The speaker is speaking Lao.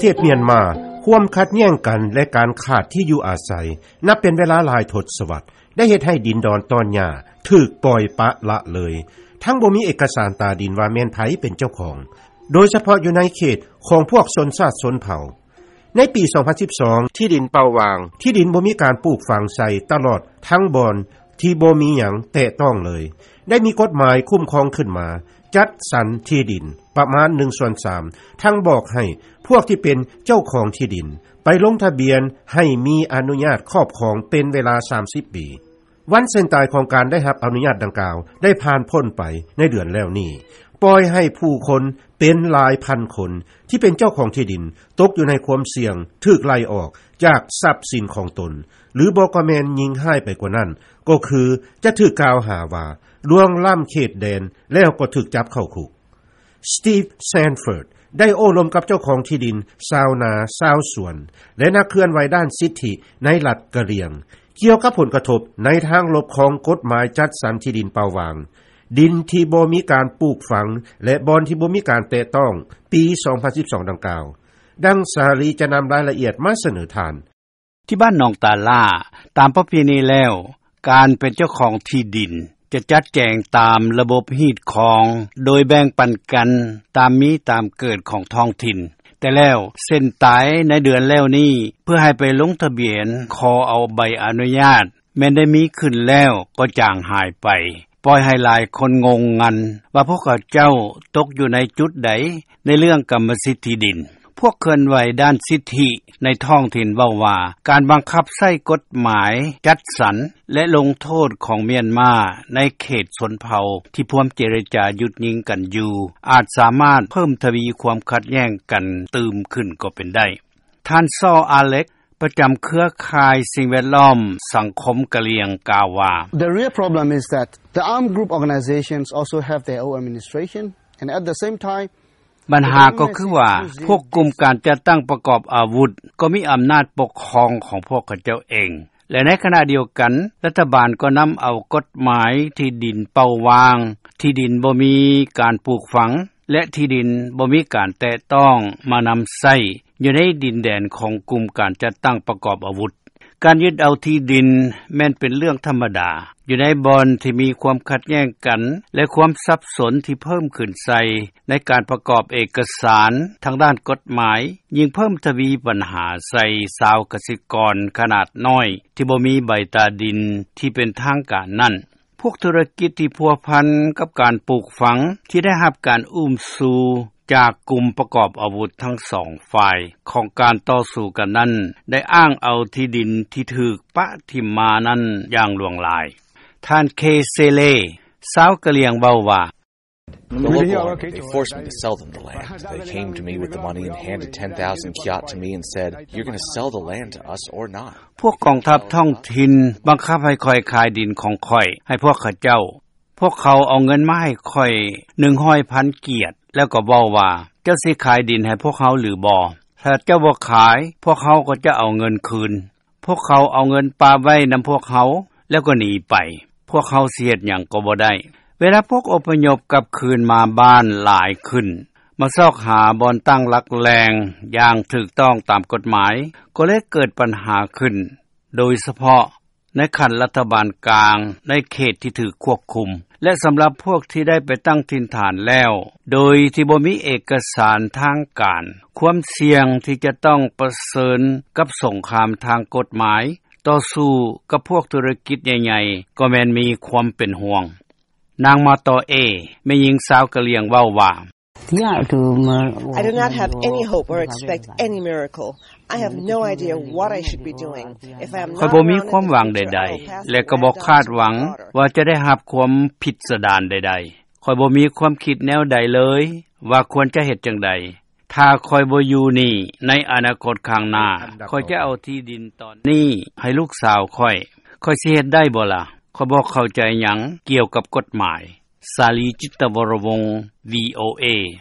ເຂດມຽນມາ, ຄວາມຂັດແຍ້ງກັນ ແລະ ການຂາດທີ່ຢູ່ອາໄສ ນັບເປັນເວລາຫຼາຍທົດສະວັດ ໄດ້ເຮັດໃຫ້ດິນດອນຕອນຫຍ້າຖືກປ່ອຍປະລະເລີຍ, ທັງບໍ່ມີເອກະສານຕາດິນວ່າແມ່ນໃຜເປັນເຈົ້າຂອງ, ໂດຍສະເພາະຢູ່ໃນເຂດຂອງພວກຊົນຊາດຊົນເຜົ່າ. ໃນປີສອງພັນສິບສອງ ທີ່ດິນເປົ່າຫວ່າງ, ທີ່ດິນບໍ່ມີການປູກຝັງໃສ່ຕະຫຼອດທັງບ່ອນທີ່ບໍ່ມີຫຍັງແຕະຕ້ອງເລີຍ, ໄດ້ມີກົດໝາຍຄຸ້ມຄອງຂຶ້ນມາ, ຈັດສັນທີ່ດິນປະມານໜຶ່ງສ່ວນສາມ ທັງບອກໃຫ້ພວກທີ່ເປັນເຈົ້າຂອງທີ່ດິນໄປລົງທະບຽນໃຫ້ມີອະນຸຍາດຄອບຄອງເປັນເວລາສາມສິບປີ. ວັນເສັ້ນຕາຍຂອງການໄດ້ຮັບອະນຸຍາດດັ່ງກ່າວໄດ້ຜ່ານພົ້ນໄປໃນເດືອນແລ້ວນີ້, ປ່ອຍໃຫ້ຜູ້ຄົນເປັນຫຼາຍພັນຄົນທີ່ເປັນເຈົ້າຂອງທີ່ດິນຕົກຢູ່ໃນຄວາມສ່ຽງຖືກໄລ່ອອກຈາກຊັບສິນຂອງຕົນ, ຫຼືບໍ່ກໍແມ່ນຍິ່ງຮ້າຍໄປກວ່ານັ້ນ ກໍຄືຈະຖືກກ່າວຫາວ່າລ່ວງລ້ຳເຂດແດນ ແລ້ວກໍຖືກຈັບເຂົ້າຄຸກ. ສະຕີບ ແຊນເຟີດ ໄດ້ໂອ້ລົມກັບເຈົ້າຂອງທີ່ດິນ, ຊາວນາ, ຊາວສວນ ແລະ ນັກເຄື່ອນໄຫວດ້ານສິດທິໃນລັດກະລຽງ ກ່ຽວກັບຜົນກະທົບໃນທາງລົບຂອງກົດໝາຍຈັດສັນທີ່ດິນເປົ່າຫວ່າງ, ດິນທີ່ບໍ່ມີການປູກຝັງ ແລະ ບ່ອນທີ່ບໍ່ມີການແຕະຕ້ອງ ປີສອງພັນສິບສອງ ດັ່ງກ່າວ. ດັ່ງສາລີຈະນຳລາຍລະອຽດມາສະເໜີທ່ານ. ທີ່ບ້ານໜອງຕາລ່າ, ຕາມປະເພນີແລ້ວ, ການເປັນເຈົ້າຂອງທີ່ດິນຈະຈັດແຈງຕາມລະບົບຮີດຄອງ ໂດຍແບ່ງປັນກັນຕາມມີຕາມເກີດຂອງທ້ອງຖິ່ນ. ແຕ່ແລ້ວ, ເສັ້ນຕາຍໃນເດືອນແລ້ວນີ້ ເພື່ອໃຫ້ໄປລົງທະບຽນຂໍເອົາໃບອະນຸຍາດ ແມ່ນໄດ້ມີຂຶ້ນແລ້ວກໍຈາງຫາຍໄປ, ປ່ອຍໃຫ້ຫຼາຍຄົນງົງງັນວ່າພວກເຂົາເຈົ້າຕົກຢູ່ໃນຈຸດໃດໃນເລື່ອງກຳມະສິດທີ່ດິນ. ພວກເຄື່ອນໄຫວດ້ານສິດທິໃນທ້ອງຖິ່ນເວົ້າວ່າ ການບັງຄັບໃຊ້ກົດໝາຍຈັດສັນ ແລະ ລົງໂທດຂອງມຽນມາໃນເຂດຊົນເຜົ່າທີ່ພວມເຈລະຈາຢຸດຍິງກັນຢູ່ ອາດສາມາດເພີ່ມທະວີຄວາມຂັດແຍ້ງກັນຕື່ມຂຶ້ນກໍເປັນໄດ້. ທ່ານ ຊໍ ອາເລັກ ປະຈຳເຄືອຂ່າຍສິ່ງແວດລ້ອມສັງຄົມກະຫຼຽງ ກ່າວວ່າ The real problem is that the armed group organizations also have their own administration and at the same time ບັນຫາກໍຄືວ່າ ພວກກຸ່ມການຈັດຕັ້ງປະກອບອາວຸດກໍມີອຳນາດປົກຄອງຂອງພວກເຂົາເຈົ້າເອງ ແລະ ໃນຂະນະດຽວກັນ ລັດຖະບານກໍນຳເອົາກົດໝາຍທີ່ດິນເປົ່າຫວ່າງ, ທີ່ດິນບໍ່ມີການປູກຝັງ ແລະ ທີ່ດິນບໍ່ມີການແຕະຕ້ອງມານຳໃຊ້ຢູ່ໃນດິນແດນຂອງກຸ່ມການຈັດຕັ້ງປະກອບອາວຸດ. ການຍຶດເອົາທີ່ດິນແມ່ນເປັນເລື່ອງທຳມະດາ ຢູ່ໃນບ່ອນທີ່ມີຄວາມຂັດແຍ້ງກັນ ແລະ ຄວາມສັບສົນທີ່ເພີ່ມຂຶ້ນໃສ່ໃນການປະກອບເອກະສານທາງດ້ານກົດໝາຍ ຍິ່ງເພີ່ມທະວີບັນຫາໃສ່ຊາວກະສິກອນຂະໜາດນ້ອຍທີ່ບໍ່ມີໃບຕາດິນທີ່ເປັນທາງການນັ້ນ. ພວກທຸລະກິດທີ່ພົວພັນກັບການປູກຝັງ ທີ່ໄດ້ຮັບການອຸ້ມຊູຈາກກຸ່ມປະກອບອາວຸດທັງສອງຝ່າຍຂອງການຕໍ່ສູ້ກັນນັ້ນ ໄດ້ອ້າງເອົາທີ່ດິນທີ່ຖືກປະຖິ້ມມານັ້ນຢ່າງຫຼວງຫຼາຍ. ທ່ານ ເຄ ເຊເລ ຊາວກະຫຼຽງເວົ້າວ່າ The local army, they forced me to sell them the land. They came to me with the money and handed ten thousand kyat to me and said, "You're gonna sell the land to us or not." ພວກກອງທັບທ້ອງຖິ່ນບັງຄັບໃຫ້ຂ້ອຍຂາຍດິນຂອງຂ້ອຍໃຫ້ພວກເຂົາເຈົ້າ. ພວກເຂົາເອົາເງິນມາໃຫ້ຂ້ອຍໜຶ່ງຮ້ອຍພັນກຽດ ແລ້ວກໍເວົ້າວ່າ, ເຈົ້າຊິຂາຍດິນໃຫ້ພວກເຮົາຫຼືບໍ່? ຖ້າເຈົ້າບໍ່ຂາຍ, ພວກເຮົາກໍຈະເອົາເງິນຄືນ. ພວກເຂົາເອົາເງິນປະໄວ້ນຳພວກເຮົາ ແລ້ວກໍໜີໄປ. ພວກເຮົາຊິເຮັດຫຍັງກໍບໍ່ໄດ້. ເວລາພວກອົບພະຍົບກັບຄືນມາບ້ານຫຼາຍຂຶ້ນ, ມາຊອກຫາບ່ອນຕັ້ງຫຼັກແຫຼ່ງຢ່າງຖືກຕ້ອງຕາມກົດໝາຍ, ກໍເລີຍເກີດບັນຫາຂຶ້ນ, ໂດຍສະເພາະໃນຂັ້ນລັດຖະບານກາງໃນເຂດທີ່ຖືກຄວບຄຸມ ແລະ ສຳລັບພວກທີ່ໄດ້ໄປຕັ້ງຖິ່ນຖານແລ້ວ ໂດຍທີ່ບໍ່ມີເອກະສານທາງການ, ຄວາມສ່ຽງທີ່ຈະຕ້ອງປະເຊີນກັບສົງຄາມທາງກົດໝາຍ, ຕໍ່ສູ້ກັບພວກທຸລະກິດໃຫຍ່ໆ ກໍແມ່ນມີຄວາມເປັນຫ່ວງ. ນາງ ມາຕໍເອ, ແມ່ຍິງຊາວກະຫຼຽງເວົ້າວ່າ, I do not have any hope or expect any miracle. I have no idea what I should be doing. If I am not around in the future, I will pass on. ຂ້ອຍບໍ່ມີຄວາມຫວັງໃດໆ ແລະ ກໍບໍ່ຄາດຫວັງວ່າຈະໄດ້ຮັບຄວາມພິດສະດານໃດໆ. ຂ້ອຍບໍ່ມີຄວາມຄິດແນວໃດເລີຍວ່າຄວນຈະເຮັດຈັ່ງໃດ. ຖ້າຂ້ອຍບໍ່ຢູ່ນີ້ໃນອະນາຄົດຂ້າງໜ້າ, ຂ້ອຍຈະເອົາທີ່ດິນຕອນນີ້ໃຫ້ລູກສາວຂ້ອຍ. ຂ້ອຍຊິເຮັດໄດ້ບໍ່ລະ? ຂ້ອຍບໍ່ເຂົ້າໃຈຫຍັງກ່ຽວກັບກົດໝາຍ. ສາລີ ຈິດຕະວໍລະວົງ, ວີໂອເອ.